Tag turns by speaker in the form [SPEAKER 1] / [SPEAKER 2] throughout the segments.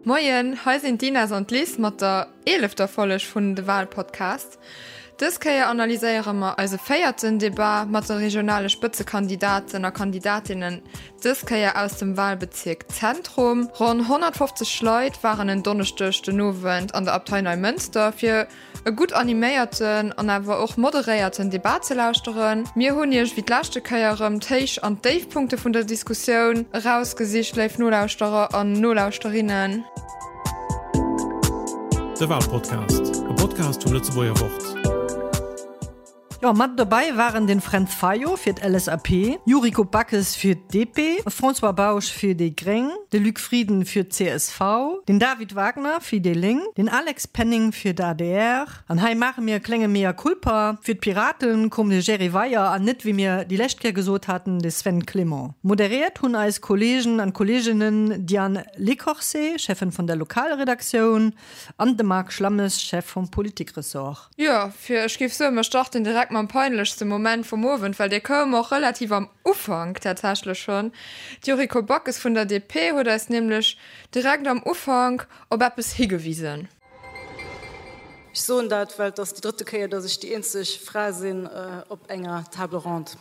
[SPEAKER 1] Moien, hei sinn d'Ines an d'Liz mat der eelefter Folleg vun de Walpodcast. Dës Kéier analyséiere mer eise véierten Debat mat de regionale Spëtzekandidaten a Kandidatinnen, dës Kéier aus dem Walbezierk Zentrum. Ronn 150 Leit waren en Donneschdeg den Owend an der Abtei Neimënster fir e gutt animéierten an awer och moderéierten Debat ze lauschteren. Mir hunn iech wéi d'leschte Kéier erëm d'Héich an d'Déifpunkte vun der Diskussioun erausgesicht, léif Nolauschterer an Nolauschterinnen.
[SPEAKER 2] De Walpodcast, e Podcast vum Lëtzebuerger Wort.
[SPEAKER 3] Jo, mat dobäi waren den Fränz Fayot fir d'LSAP, Yuriko Backes fir d'DP, François Bausch fir déi Gréng, de Luc Frieden fir d'CSV, den David Wagner fir déi Lénk, den Alex Penning fir d'ADR. An hei maache mir e klénge Mea culpa, Fir d'Piraten koum de Jerry Weyer an net, wéi mir déi lescht Kéier gesot haten, de Sven Clement. Moderéiert hunn eis Kolleegen an Kolleeginnen Diane Lecorset, Cheffin vun der Lokalredaktioun, an de Marc Schlammes, Chef vum Politikressort.
[SPEAKER 1] Jo, fir ech géif soen, mer starten direkt mam peinlechste Moment vum Owend, well dee koum och relativ am Ufank tatsächlech schonn. D'Yuriko Backes vun der DP huet eis nämlech direkt am Ufank op eppes higewisen.
[SPEAKER 4] Ech soen dat, well et ass déi drëtte Kéier, datt ech déi eenzeg Fra sinn op enger Table ronde.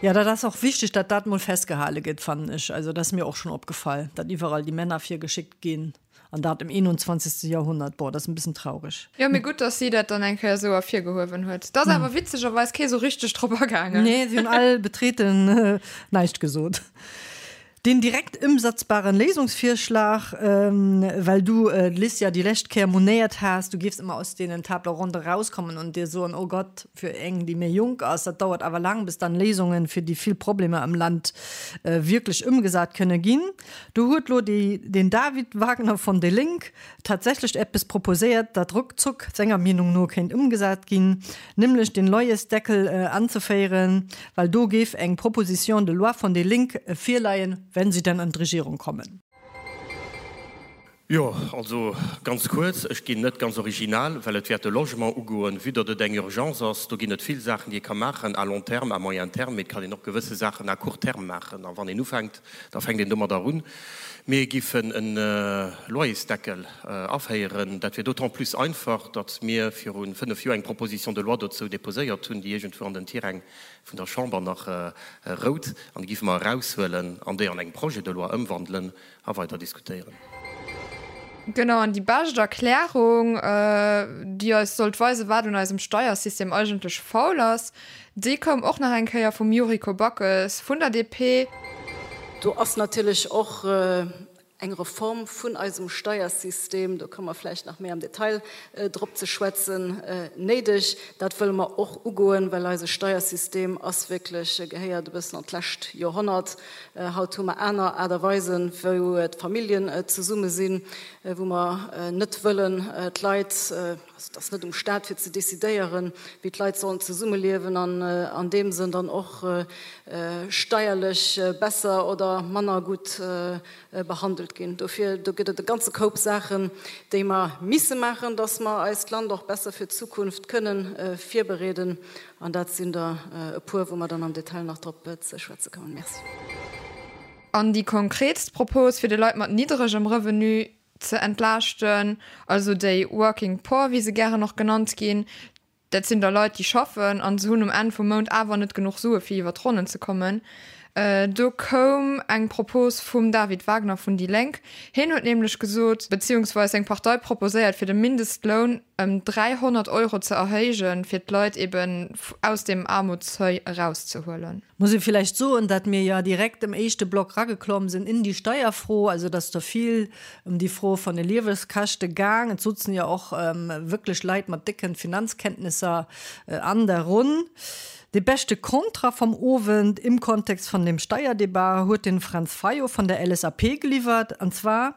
[SPEAKER 3] Jo, dat ass och wichteg, datt dat mol festgehale gëtt, fannen ech. Also dat ass mir och schonn opgefall, datt iwwerall déi Männer virgeschéckt ginn. An dat im 21. Jahrhundert. Boah, dat ass en bëssen traureg.
[SPEAKER 1] Jo, mee gutt, dass si dat dann eng Kéier esou ervirgehuewen huet. Et ass awer witzegerweis kee sou richteg drop agaangen.
[SPEAKER 3] Nee, si hunn all betreten näischt gesot. Den direkt ëmsetzbaren Léisungsvirschlag, well du, Liz, ja déi lescht Kéier monéiert has, du géifs ëmmer aus deenen Table ronde erauskommen an dir soen, oh Gott, fir eng, déi méi jonk ass, dat dauert awer laang, bis dann Léisungen fir déi vill Problemer am Land wierklech ëmgesat kënne ginn. Do huet lo den David Wagner von déi Lénk tatsächlech eppes proposéiert, dat ruckzuck senger Meenung no kéint ëmgesat ginn, nämlech den Loyersdeckel anzeféieren, well do géif eng Proposition de loi von déi Lénk virleien, wenn sie denn an d'Regierung kommen.
[SPEAKER 5] Jo, also ganz kuerz, ech ginn net ganz original, well et wäert de Logement ugoen, vue datt et eng Urgence ass. Do ginn et vill Saachen, déi ee ka maachen à long terme, à moyen terme, mee et kann een och gewësse Saachen à court terme maachen. A wann een ufänkt, da fänkt een domadder un. Mir giffen e Loyersdeckel aféieren. Dat wier d'autant plus einfach, datt mir viru fënnef Joer eng Proposition de loi dozou déposéiert hunn, déi iergendwou an den Tiräng vun der Chamber nach rout. An déi giffe mer eraushuelen an déi an eng Projet de loi ëmwandelen a weider diskutéieren.
[SPEAKER 1] Genau, an déi bescht Erklärung, déi eis sollt weisen, wat un eisem Steiersystem eigentlech faul ass, déi koum och nach eng Kéier vum Yuriko Backes vun der DP.
[SPEAKER 4] Do ass natierlech och eng Reform vun eisem Steiersystem, do komme mer vläicht nach méi am Detail drop ze schwätzen, néideg. Dat wëlle mer och ugoen, well eise Steiersystem ass wierklech, gehéiert e bëssen an d'lescht Joerhonnert. Haut hu mer aner Aart a Weisen, wou d'Familljen zesumme sinn, wou mer net wëllen d'Leit, also et ass net um Stat fir ze decidéieren, wéi d'Leit sollen zesummeliewen an an deem Sënn dann och steierlech besser oder manner gutt behandelt ginn. Dofir, do gëtt et e ganze Koup Saachen, déi mer misse maachen, dass mer eist Land och besser fir d'Zukunft kënnen virbereeden. An dat sinn der e puer, wou mer dann am Detail nach drop ze schwätze kommen. Merci.
[SPEAKER 1] An déi konkretst Propos, fir de Leit mat nidderegem Revenu ze entlaaschten, also déi Working Poor, wéi se gären och genannt ginn, Dat sinn da Leit, déi schaffen an se hunn um Enn vum Mount awer net genuch Sue fir iwwer d'Ronnen ze kommen. Do koum eng Propos vum David Wagner vun déi Lénk. Hien huet nämlech gesot, beziehungsweis seng Partei proposéiert, fir de Mindestloun ëm 300 Euro ze erhéijen, fir d'Leit eben aus deem Aarmutsseuil erauszehuelen.
[SPEAKER 3] Muss ee villäicht soen, dat mir jo direkt am éischte Block rageklomm sinn in déi Steierfro, also dass do vill ëm déi Fro von de Lieweskäschte gaang. Et sutzen jo och wierklech Leit mat décken Finanzkenntnisser an der Ronn. De beschte Kontra vom Owend im Kontext von dem Steierdebat huet den Franz Fayot von der LSAP geliwwert, an zwar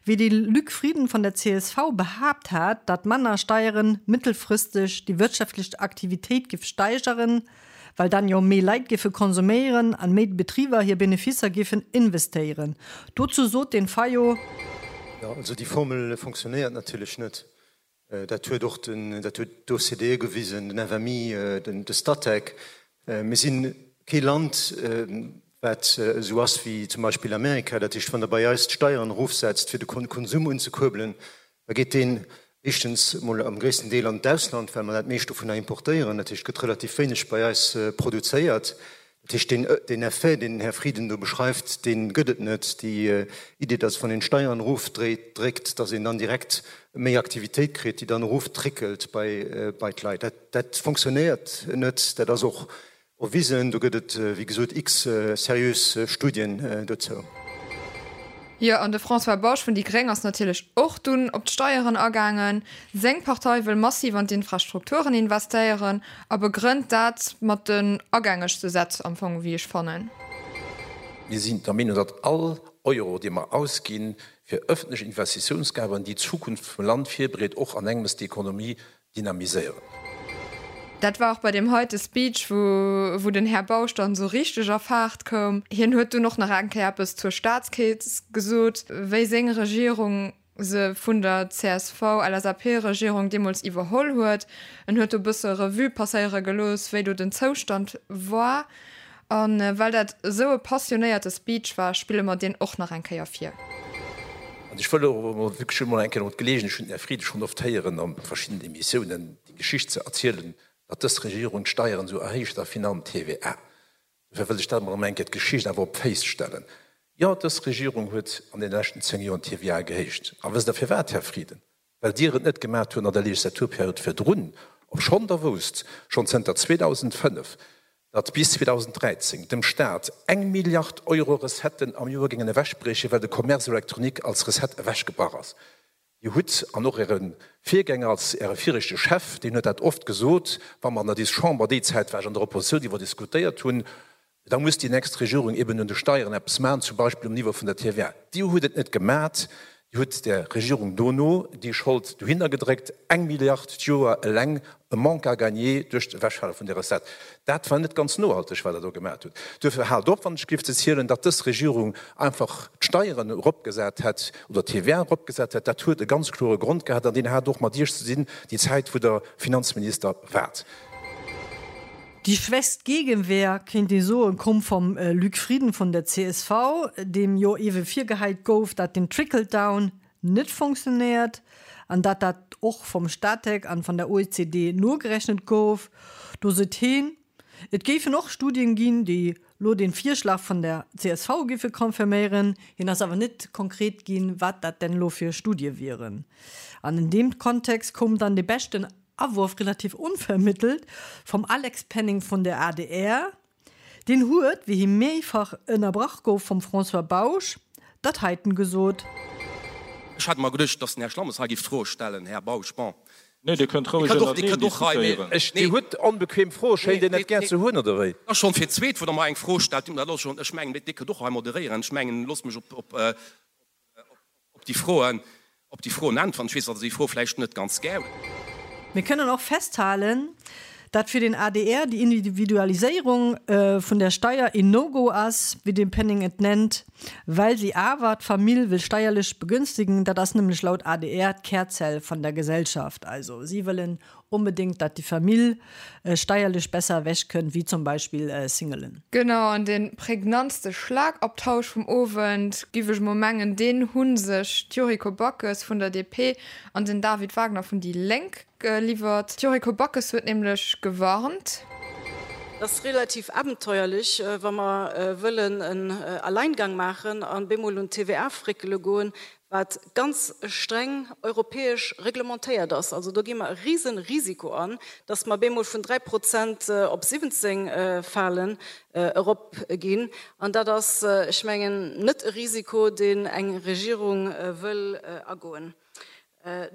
[SPEAKER 3] wéi de Luc Frieden von der csv behaapt hat, dat manner Steieren mittelfristeg déi wirtschaftlech Aktivitéit giff steigeren, well dann jo méi Leit giffe konsuméieren an méi Betriber hir Beneficer giffen investéieren. Dozou sot den Fayot.
[SPEAKER 6] Jo, also déi Formel fonctionnéiert natierlech net. Dat huet och den, dat huet d'OCDE gewisen, den FMI, de Statec. Mir si kee Land. Wat esou ass wéi zum Beispill Amerika, dat heescht, wann Der bei eis d'Steieren erofsetzt, fir de Konsum unzekuerbelen, da geet deen éischtens emol am gréissten Deel an d'Ausland, well mer dat meescht dovunner importéieren. Dat heescht, et gëtt relativ wéineg bei eis produzéiert. Dat heescht, deen Effet, deen den Här Frieden do beschreift, dee gëtt et net. Déi Idee, datt wann een d'Steieren erofdréckt, datt een dann direkt méi Aktivitéit kritt, déi dann eroftrickelt bei d'Leit, dat fonctionnéiert net. Dat ass och Erwisen, do gëtt et wéi gesot x seriös Studien dozou.
[SPEAKER 1] Jo, an de François Bausch vun déi Gréng ass natierlech och dunn op d'Steieren agaangen. Seng Partei wëll massiv an d'Infrastrukturen investéieren a begrënnt dat mat den agängegste Sätz am Fong, wéi ech fannen.
[SPEAKER 7] Mir sinn der Meenung, datt all Euro, dee mer ausginn fir öffentlech Investitiounsgaben, déi d'Zukunft vum Land virbereet, och an engems d'Ekonomie dynamiséieren.
[SPEAKER 1] Dat war och bei deem heite Speech, wou wou den Här Bausch dann esou richteg a Faart koum. Hien huet dunn och nach eng Kéier eppes zur Staatskeess gesot, wéi seng Regierung se vun der CSV-LSAP-Regierung deemools iwwerholl huet. En huet do e bësse Revue passéiere gelooss, wéi do den Zoustand war. A well dat esou e passionéierte Speech war, spille mer deen och nach eng Kéier vir.
[SPEAKER 7] An ech wëll och emol wierklech emol eng Kéier emol d'Geleegenheet, ech hunn den Här Frieden schonn oft héieren a verschiddenen Emissiounen, déi Geschicht ze erzielen, datt dës Regierung d'Steieren esou erhéicht a virun allem d'TVA. Dofir wëll ech dat emol erëm eng Kéier d'Geschicht awer op d'Féiss stellen. Jo, dës Regierung huet an deene leschten 10 Joren d'TVA gehéicht. A wësst Der firwat, Här Frieden? Well Dir et net gemat hutt an der Legislaturperiod virdrun, obschonn Der wousst, schonn zënter 2005, datt bis 2013 dem Stat eng Milliard Euro Recetten am Joer géingen ewechbriechen, well de Commerce électronique als Recette ewechgebrach ass. Dir hutt, an och Äre Virgänger als Äre viregte Chef, deen huet dat oft gesot, wa mer an der dis Chamber, déi Zäit war ech an der Oppositioun, iwwer diskutéiert hunn, Da muss déi nächst Regierung eben un de Steieren eppes maachen, zum Beispill um Niveau vun der TVA. Dir hutt et net gemat, Dir hutt der Regierung dono déi Schold dohinner gedréckt, eng Milliard d'Joer eleng e Manque à gagner duerch d'Ewechfale vun der Recette. Dat war net ganz nohalteg, wat Der do gemat hutt. Duerfir haalt op, wann ech géif ze zielen, datt dës Regierung einfach d'Steieren eropgesat hätt oder d'TVA eropgesat hätt. Dat huet e ganz klore Grond gehat an deen hat och mat Iech ze dinn, déi Zäit, wou Der Finanzminister waart.
[SPEAKER 3] Déi schwächst Gegenwehr, kéint ee soen, koum vum Luc Frieden vun der csv, deem jo ewe virgehäit gouf, dat den Trickle-Down net fonctionnéiert an dat dat och vum Statec an van der OECD nogerechnet gouf. Do sot heen, et géifen och Studien ginn, déi lo den Virschlag vun der csv géife confirméieren. Hien ass awer net konkret ginn, wat dat denn lo fir Studie wieren. An in deem Kontext koum dann de beschten Awurf relativ onvermittelt vum Alex Penning vun der adr. Deen huet, wéi hie méifach ënnerbrach gouf vum François Bausch, dat heiten gesot.
[SPEAKER 5] Ech hat mer geduecht, dass den Här Schlammes hei géif d'Froe stellen. Här Bausch, bon.
[SPEAKER 8] Nee, Dir kënnt roueg ënnerteneen diskutéieren.
[SPEAKER 7] Ech, Dir hutt onbequem Froe, schéint Dir net gär ze hunn, oder wéi?
[SPEAKER 5] Ass schonn fir d'zweet, wou Der mer eng Fro stellt. Dat ass schonn, ech mengen, Dir kënnt och hei moderéieren. Ech mengen, loosst mech op, op. Op déi Froen, op déi Froen äntweren. Ech weess, datt Der déi Fro vläicht net ganz gär hutt.
[SPEAKER 3] Mir kënnen och festhalen, dat fir den adr déi Individualiséierung vun der Steier een No-Go ass, wéi de Penning et nennt, well si awer d'Famill wëll steierlech begünstigen. Dat ass nämlech laut adr d'Kärzell vun der Gesellschaft. Also si wëllen Onbedéngt, dat déi Famill steierlech besser ewech kënnt, wéi zum Beispill Singelen.
[SPEAKER 1] Genau, an de prägnantste Schlagabtausch vum Owend, giff ech mol mengen, deen hu sech d'Yuriko Backes vun der DP an den David Wagner vun déi Lénk geliwwert. D'Yuriko Backes huet nämlech gewarnt.
[SPEAKER 4] Et ass relativ abenteuerlech, wa mer wëllen en Alleingang maachen an bemol un d'TVA fréckele goen, wat ganz streng europäesch reglementéiert ass. Also do gi mer e risen Risiko an, dass mer bemol vun 3 Prozent op 17 falen, erop ginn. An dat ass, ech mengen, net e Risiko, deen eng Regierung wëll agoen.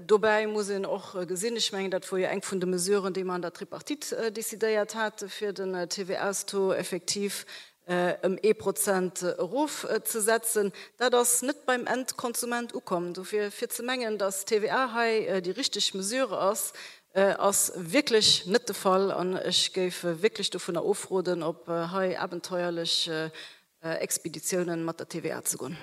[SPEAKER 4] Dobäi muss een och gesinn, ech mengen, dat wor jo eng vun de Mesuren, déi mer an der Tripartite décidéiert hate fir den TVA-Taux effektiv ëm ee Prozent erofzesetzen, dat ass net beim Endkonsument ukomm. Dofir, fir ze mengen, datt d'TVA hei déi richteg Mesure ass, ass wierklech net de Fall. An ech géif wierklech dovunner ofroden, op hei abenteuerlech Expeditiounen mat der TVA ze goen.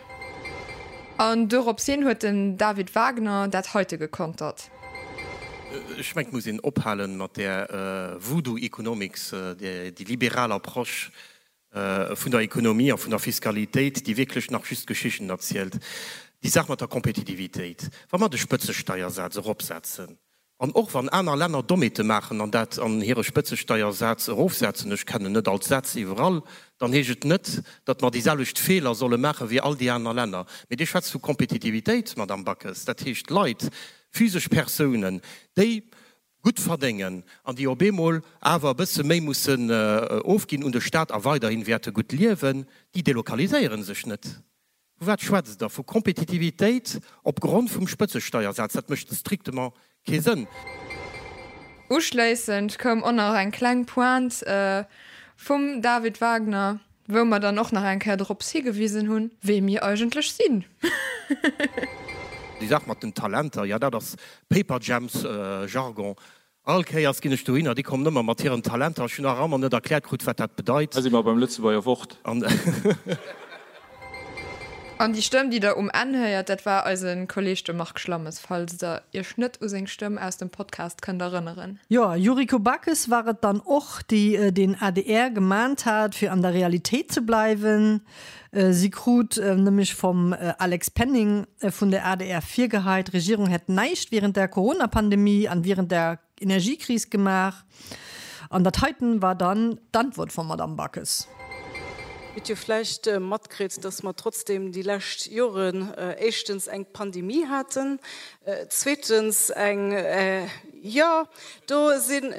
[SPEAKER 1] An dorops hin huet den David Wagner dat heite gekontert.
[SPEAKER 5] Ech mengen, et muss een ophalen mat där Voodoo Economics, déi liberal Approche. Vun der Ekonomie a vun der Fiskalitéit, déi wierklech nach just Geschichten erzielt. Déi Saach mat der Kompetitivitéit, wa mer de Spëtzesteiersaz eropsetzen, an och wann aner Länner Dommheete maachen an dat an hire Spëtzesteiersaz erofsetzen, ech kennen net all d'Sätz iwwerall, dann heescht et net, datt mer déi selwecht Feeler solle maache wéi all déi aner Länner. Mee Dir schwätzt vu Kompetitivitéit, Madamm Backes, dat heescht Leit, physesch Persounen, déi gutt verdéngen an déi op eemol awer e bësse méi mussen ofginn un de Staat a weiderhin wäerte gutt liewen, déi delokaliséiere sech net. Vu wat schwätzt Der? Vu Kompetitivitéit op Grond vum Spëtzesteiersaz? Dat mécht strictement kee Sënn.
[SPEAKER 1] Uschléissend koum och nach eng kleng Pointe vum David Wagner. Wou mer dann och nach eng Kéier drops higewisen hunn, wee mir eigentlech sinn.
[SPEAKER 5] Déi Saach mat den Talenter, jo, dat ass Paperjams Jargon. All Kéiers ginn ech dohinner, déi kommen ëmmer mat hiren Talenter. Ech hunn nach ëmmer net erkläert krut, wat dat bedeit.
[SPEAKER 8] Hei si mer beim Lëtzebuerger Wort.
[SPEAKER 1] An déi Stëmm, déi der um Enn héiert, dat war eise Kolleeg de Marc Schlammes, falls der iech net u seng Stëmm aus dem Podcast kënnt erënneren.
[SPEAKER 3] Jo, Yuriko Backes war et dann och, déi den adr gemahnt hat, fir an der Realitéit ze bleiwen. Si krut nämlech vum Alex Penning vun der adr virgeheit, d'Regierung hätt näischt wärend der Corona-Pandemie an wärend der Energiekris gemaach. An dat heiten war dann d'Antwort vum Madamm Backes.
[SPEAKER 4] Hutt jo vläicht matkritt, dass mer trotzdem déi lescht Joren éischtens eng Pandemie haten, zweetens eng, jo, do sinn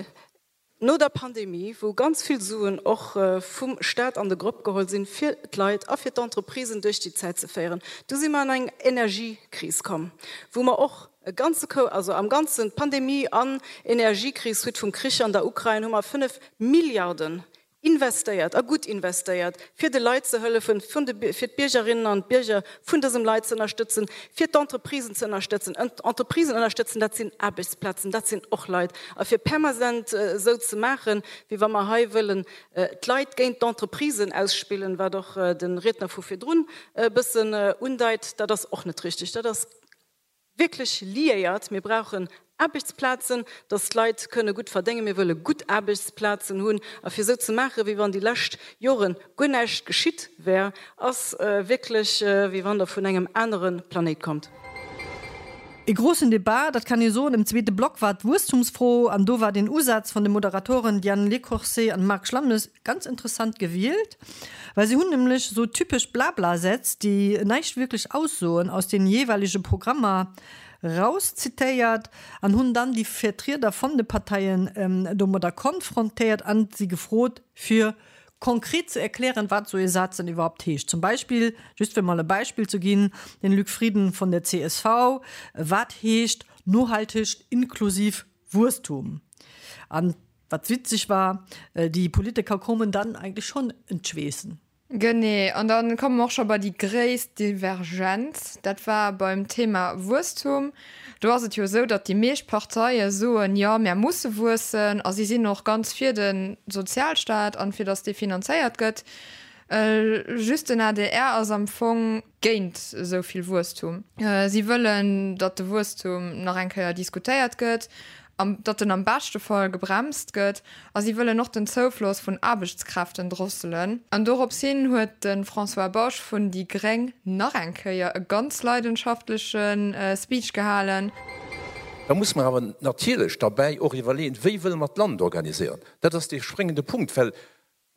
[SPEAKER 4] no der Pandemie, wou ganz vill Suen och vum Stat an de Grëpp geholl sinn, fir d'Leit a fir d'Entreprisen duerch déi Zäit ze féieren, du si mer an eng Energiekris komm, wou mer och e ganze Koup, also am Ganzen, Pandemie an Energiekris, suite vum Krich an der Ukrain, hu mer 5 Milliarden investéiert, a gutt investéiert, fir de Leit ze hëllefen, fir d'Biergerinnen an d'Bierger vun dësem Leit ze ënnerstëtzen, fir d'Entreprisen ze ënnerstëtzen. Entreprisen ënnerstëtzen, dat sinn Aarbechtsplazen, dat sinn och Leit. A fir permanent esou ze maachen, wéi wa mer hei wëllen d'Leit géint d'Entreprisen ausspillen, wat och de Riedner vu virdrun e bëssen undeit, dat ass och net richtig. Dat ass wierklech liéiert. Mir brauchen Aarbechtsplazen, dass d'Leit kënne gutt verdéngen. Mir wëlle gutt Aarbechtsplazen hunn. A fir esou ze maachen, wéi wann déi lescht Jore guer näischt geschitt wär, ass wierklech, wéi wann Der vun engem anere Planéit kommt.
[SPEAKER 3] E grossen Debat, dat kann ee soen, am zweete Block war d'Wuesstumsfro. An do war den Usaz vun de Moderatoren Diane Lecourcé an Marc Schlammes Ganz interessant gewielt, well se hunn nämlech sou typesch Blabla-Sätz, déi näischt wierklech aussoen, aus den jeeweilege Programmer rauszitéiert an hunn dann déi Vertrieder von de Parteien domadder konfrontéiert an si gefrot, fir konkret ze erklären, wat sou ee Saz denn iwwerhaupt heescht. Zum Beispill, just fir mol e Beispill ze ginn, den Luc Frieden von der csv, Wat heescht nohalteg inklusiv Wuesstum? An Wat witzeg war, déi Politiker koumen dann eigentlich schon en d'Schweessen.
[SPEAKER 1] Genee, an da komme mer och scho bei déi gréisst Divergenz, dat war beim Thema Wuesstum. Do ass et jo esou, datt déi meescht Parteie soen, jo, mär musse wuessen a si sinn och ganz fir de Sozialstaat an fir datt dee finanzéiert gëtt. Just den adr ass am Fong géint esou vill Wuesstum. Si wëllen, datt de Wuesstum nach eng Kéier diskutéiert gëtt, datt en am beschte Fall gebremst gëtt a si wëllen och den Zoufloss vun Aarbechtskräften drosselen. An dorops hin huet de François Bausch vun déi gréng nach eng Kéier e ganz leidenschaftleche Speech gehalen.
[SPEAKER 7] Da muss mer awer natierlech derbäi och iwwerleeën, Wéi wëlle mer d'Land organiséieren? Dat ass dee spréngende Punkt, well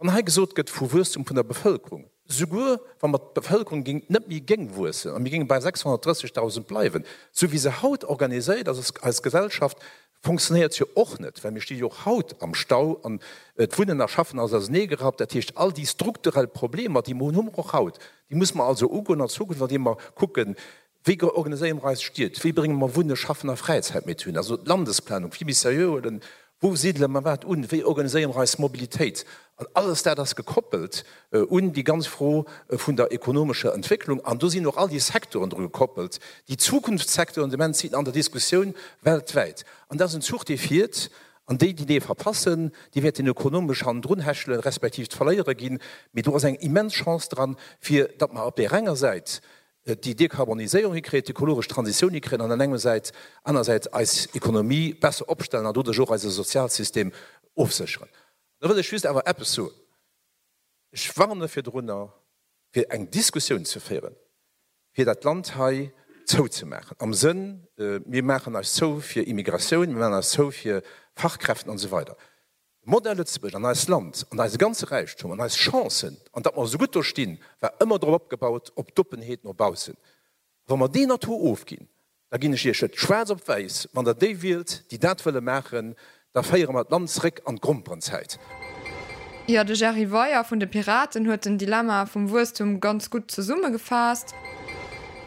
[SPEAKER 7] Wann hei gesot gëtt vu Wuesstum vun der Bevëlkerung, souguer wa mer d'Bevëlkerung géing net méi géing wuessen a mir géinge bei 630.000 bleiwen, esou wéi se haut organiséiert ass, eis Gesellschaft fonctionnéiert jo och net, well mir sti jo och haut am Stau an d'Wunnen a Schaffen ass auserneegerappt. Dat heescht, all déi strukturell Problemer, déi mer hunn, hu mer och haut. Déi muss mer also ugoen an Zukunft, andeem mer kucken, Wéi organiséiere mer eis Stied? Wéi brénge mer Wunnen, Schaffen a Fräizäit méi zuneen? Also d'Landesplanung vill méi seriö huelen. Wou sidele mer wat un? Wéi organiséiere mer eis Mobilitéit? An alles dat ass gekoppelt un déi ganz Fro vun der ekonomescher Entwécklung. An do sinn och all déi Secteuren dru gekoppelt, déi Zukunftssecteuren, de Moment sinn an der Diskussioun weltwäit. An dat ass en Zuch, dee fiert. An déi, déi dee verpassen, déi wäerten ökonomesch hannendrun hechelen, respektiv d'Verléierer ginn. Mee do ass eng immens Chance dran, fir datt mer op där enger Säit déi Dekarboniséierung hikréien, d'ökologesch Transitioun hikréien an an engem Säit, anersäits eis Ekonomie besser opstellen an doduerch och eise Sozialsystem ofsécheren. Da wëll ech just awer eppes soen. Ech warne virdrunner, fir eng Diskussioun ze féieren, fir dat Land hei zouzemaachen, am Sënn, mir maachen eis zou fir Immigratioun, mir maachen eis zou fir Fachkräften an esou weider. De Modell Lëtzebuerg an eist Land an eise ganze Räichtum an eis Chancen an datt mer esou gutt do stinn, war ëmmer drop opgebaut, op d'Oppenheet no baussen. Wa mer deen Atout ofginn, da ginn ech Iech et schwaarz op wäiss, wann Der déi wielt, déi dat wëlle maachen, da féiere mer d'Land zréck an d'Gromperenzäit.
[SPEAKER 1] Jo, de Jerry Weyer vun de Piraten huet den Dilemma vum Wuesstum ganz gutt zesummegefaasst.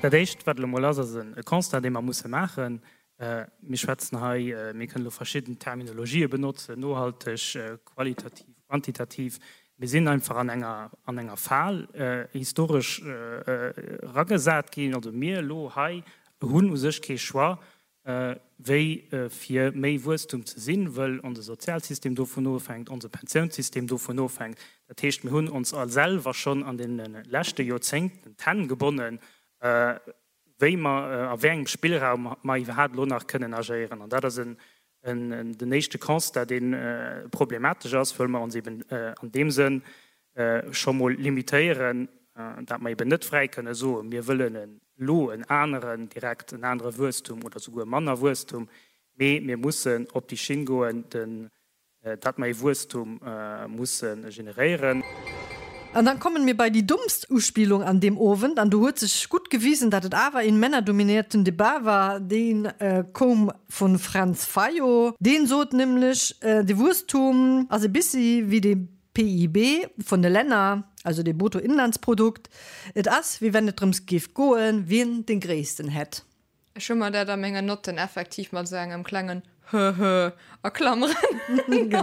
[SPEAKER 9] Dat Éischt, wat elo mol ass, ass e Constat, dee mer musse maachen. Mir schwätzen hei, mir kënnen elo verschidden Terminologië benotzen, nohalteg, qualitativ, quantitativ. Mir sinn einfach an enger, an enger Fal historesch eragesat ginn. Also mir elo hei hunn u sech kee Choix, wéi fir méi Wuesstum ze sinn, wëll onse Sozialsystem dovun ofhänkt, onse Pensiounssystem dovun ofhänkt. Dat heescht, mir hunn ons all selwer schonn an deene leschte Joerzéngten d'Hänn gebonnen, wéi mer, a wéi engem Spillraum mer iwwerhaapt elo nach kënnen agéieren. An dat ass en, den éischte Constat, dee problematesch ass, wëll mer ons eben an deem Sënn scho mol limitéieren, dat mer eben net fräi kënne soen, mir wëllen elo en aneren, direkt en anere Wuesstum oder souguer manner Wuesstum, mee mir mussen op déi Schinn goen, den Dat mer ee Wuesstum musse generéieren.
[SPEAKER 3] An dann kommen mir bei die dummst Uspielung an deem Owend, an do huet sech gutt gewisen, dat et awer een männerdominierten Debat war, deen koum vun Fränz Fayot. Deen sot nämlech, de Wuesstum ass e bissi wéi de PIB vun de Länner, also de Bruttoinlandsprodukt, et ass wéi wenn et drëms géif goen, wien den gréissten hätt.
[SPEAKER 1] Ech hu mer dat a mengen Notten effektiv mat esou engem klengen Höhö a Klammeren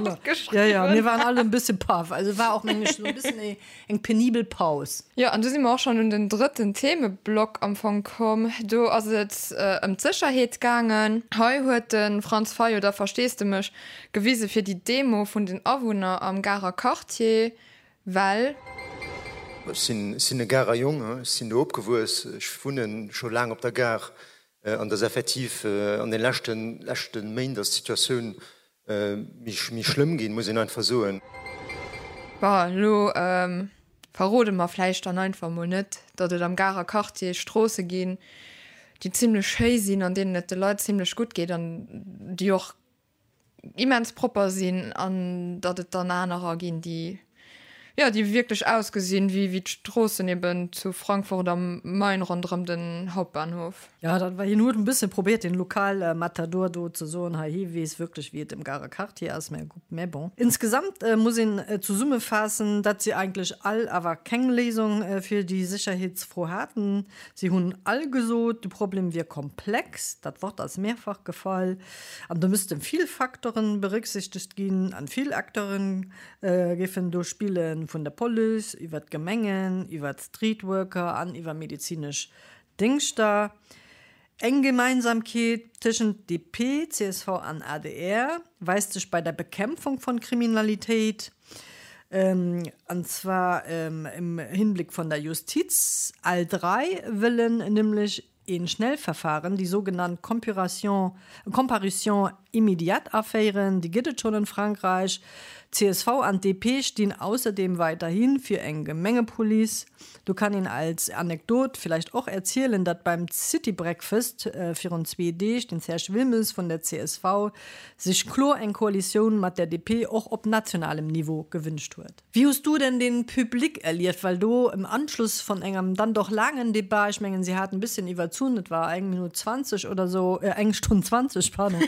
[SPEAKER 3] opgeschriwwen. Ja, ja, mir waren all en bësse paff. Also war och, mengen ech, esou e bëssen eng penibel Paus.
[SPEAKER 1] Jo, an du si mer och schonn un den drëtten Themeblock am Fong komm. Do ass et ëm d'Sécherheet gaangen. Hei huet de Franz Fayot da Versteesdemech gewise fir déi Demo vun den Awunner am Garer Quartier. Well.
[SPEAKER 6] Ech sinn e Garer Jong, ech sinn do opgewuess, ech wunne scho laang op der Gare an et ass effektiv an de leschte leschte Méint ass d'Situatioun méi schlëmm ginn, muss een einfach soen.
[SPEAKER 1] Bon, elo verrode mer vläicht dann einfach mol net, datt et am Garer Quartier Stroosse ginn, déi zimlech schéi sinn, an deenen et de Leit zimlech gutt geet an déi och immens propper sinn an datt et dann anerer ginn, déi, jo, déi wierklech ausgesinn wéi wéi d'Stroossen eben zu Frankfurt am Main ronderëm den Hauptbahnhof.
[SPEAKER 3] Jo, dat war, hien huet en bësse probéiert den Lokalmatador do ze soen, hei hie weess wierklech wéi et am Garer Quartier ass, mä gutt, mä bon. Insgesamt muss een zesummefaassen, datt si eigentlech all awer keng Léisung fir déi Sécherheetsfro haten. Si hunn all gesot, de Problem wier komplex, dat Wort ass mehrfach gefall. An do missten vill Facteuren berücksichtegt ginn an vill Acteuren géifen do spillen, vun der Police iwwer d'Gemengen, iwwer d'Streetworker an iwwer medezinesch Déngschter. Eng Gemeinsamkeet tëschent DP, csv an adr weist sech bei der Bekämpfung von Kriminalitéit, an zwar im Hinblick von der Justiz. All drei wëllen nämlech een Schnellverfahren, déi sougenannt Compuration, Comparution immédiate aféieren, déi gëtt et schonn an Frankräich. Csv an DP stinn ausserdeem weiderhi fir eng Gemengepolice. Do kann een als Anekdot villäicht och erzielen, datt beim City Breakfast virun zwee Deeg den Serge Wilmes vun der csv sech kloer eng Koalitioun mat der DP och op nationalem Niveau gewünscht huet. Wéi hues du denn den Public erlieft? Well do im Anschluss von engem dann doch laangen Debat, ech mengen si haten e bësschen iwwerzunn, et war eng Minutt 20 oder sou, eng Stonn 20, pardon,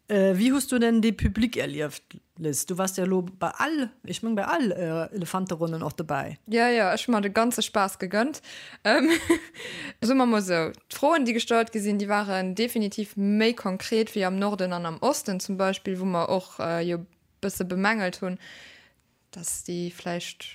[SPEAKER 3] wéi hues du denn de Public erlieft, Liz? Du wars jo elo bei all, ech meng bei all Elefanteronnen och dobäi.
[SPEAKER 1] Jo, jo, ech hu mer de ganze Spaass gegönnt. Soe mer mol sou, d'Froen déi gestallt gi sinn, déi waren definitiv méi konkret wéi am Norden an am Osten zum Beispill, wou mer och jo bësse bemängelt hunn, dass déi vläicht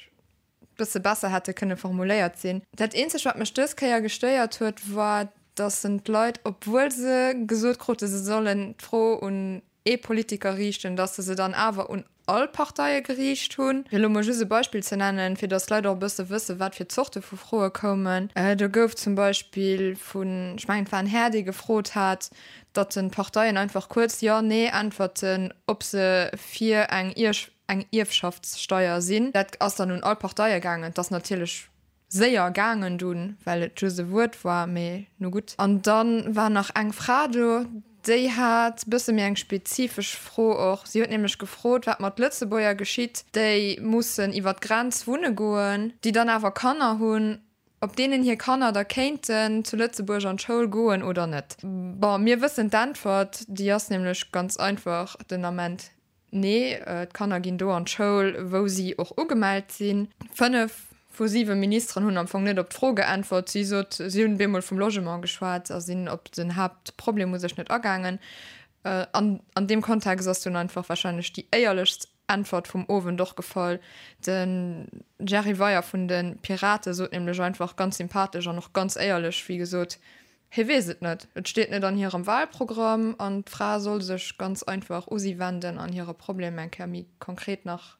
[SPEAKER 1] bësse besser hätte kënne formuléiert sinn. Dat eenzegt, wat mech dës Kéier gestéiert huet, war, dass en d'Leit, obwuel se gesot krute se sollen d'Fro un ee Politiker riichten, dass se se dann awer un all Parteie geriicht hunn. Fir elo mol just e Beispill ze nennen, fir dass d'Leit och e bësse wëssen, wat fir Zorte vu Froe koumen. Do gouf zum Beispill vun, ech mengen, et war en Här, dee gefrot hat, datt den Parteien einfach kuerz Jo, Nee äntwerten, ob se fir eng. eng Ierfschaftssteier sinn. Dat ass dann un all Parteie gaangen. Et ass natierlech séier gaangen dunn, well et just e Wuert war, mee nu gutt. An da war nach eng Fra do, déi hat bësse méi eng spezifesch Fro och. Si huet nämlech gefrot, wat mat Lëtzebuerger geschitt, déi mussen iwwer d'Grenz wunne goen, déi dann awer Kanner hunn, ob deenen hir Kanner da kéinten zu Lëtzebuerg an d'Schoul goen oder net. Bon, mir wëssen d'Äntwert, déi ass nämlech ganz einfach den Ament, Nee, d'Kanner ginn do an d'Schoul, wou si och ugemellt sinn. 5 vu 7 Ministeren hunn am Fong net op d'Fro geäntwert. Si sot, si hunn bemol vum Logement geschwat a sinn op den Haaptproblem u sech net agaangen. An an deem Kontext ass dunn einfach warscheinlech déi éierlechst Äntwert vum Owend och gefall. De Jerry Weyer vun de Pirate sot nämlech einfach ganz sympathesch an och ganz éierlech, wéi gesot, Hie weess et net, et steet net an hirem Wahlprogramm an d'Fra soll sech ganz einfach u si wenden an hire Problem eng Kéier méi konkret nach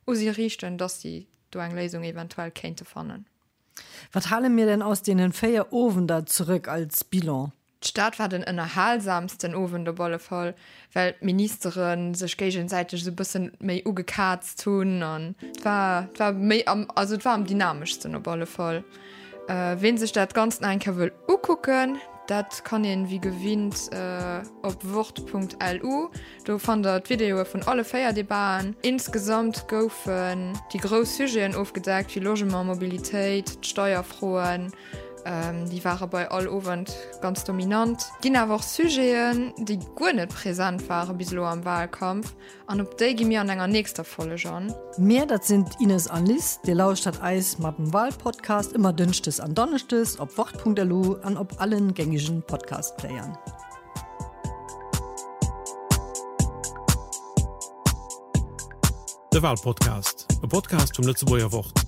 [SPEAKER 1] u si riichten, dass si do eng Léisung eventuell kéinte fannen.
[SPEAKER 3] Wat hale mir denn aus deenen 4 Owender zurëck als Bilan?
[SPEAKER 1] D'Stad war den ënnerhalsamsten Owend op alle Fall, well d'Ministere sech géigesäiteg esou bëssen méi ugekaazt hunn an et war, et war méi am, also et war am dynameschsten op alle Fall. Ween sech dat Ganzt nach eng Kéier wëll ukucken, dat kann een wéi gewinnt op wort.lu. Do fannt der d'Videoe vun alle 4 Debaten. Insgesamt goufen déi grouss Sujeten ofgedeckt, wéi Logement, Mobilitéit, d'Steierfroen, déi ware bei all Owend ganz dominant. Ginn awer och Sujeten, déi guer net present ware bis elo am Wahlkampf. An op déi gi mir an enger nächster Folleg an.
[SPEAKER 3] Mir, dat sinn d'Ines an Liz. Dir lauschtert eis mat dem Wahlpodcast ëmmer dënschdes an donneschdes op wort.lu an op allen gängigen Podcast-Playern.
[SPEAKER 2] De Wahlpodcast, e Podcast vum Lëtzebuerger Wort.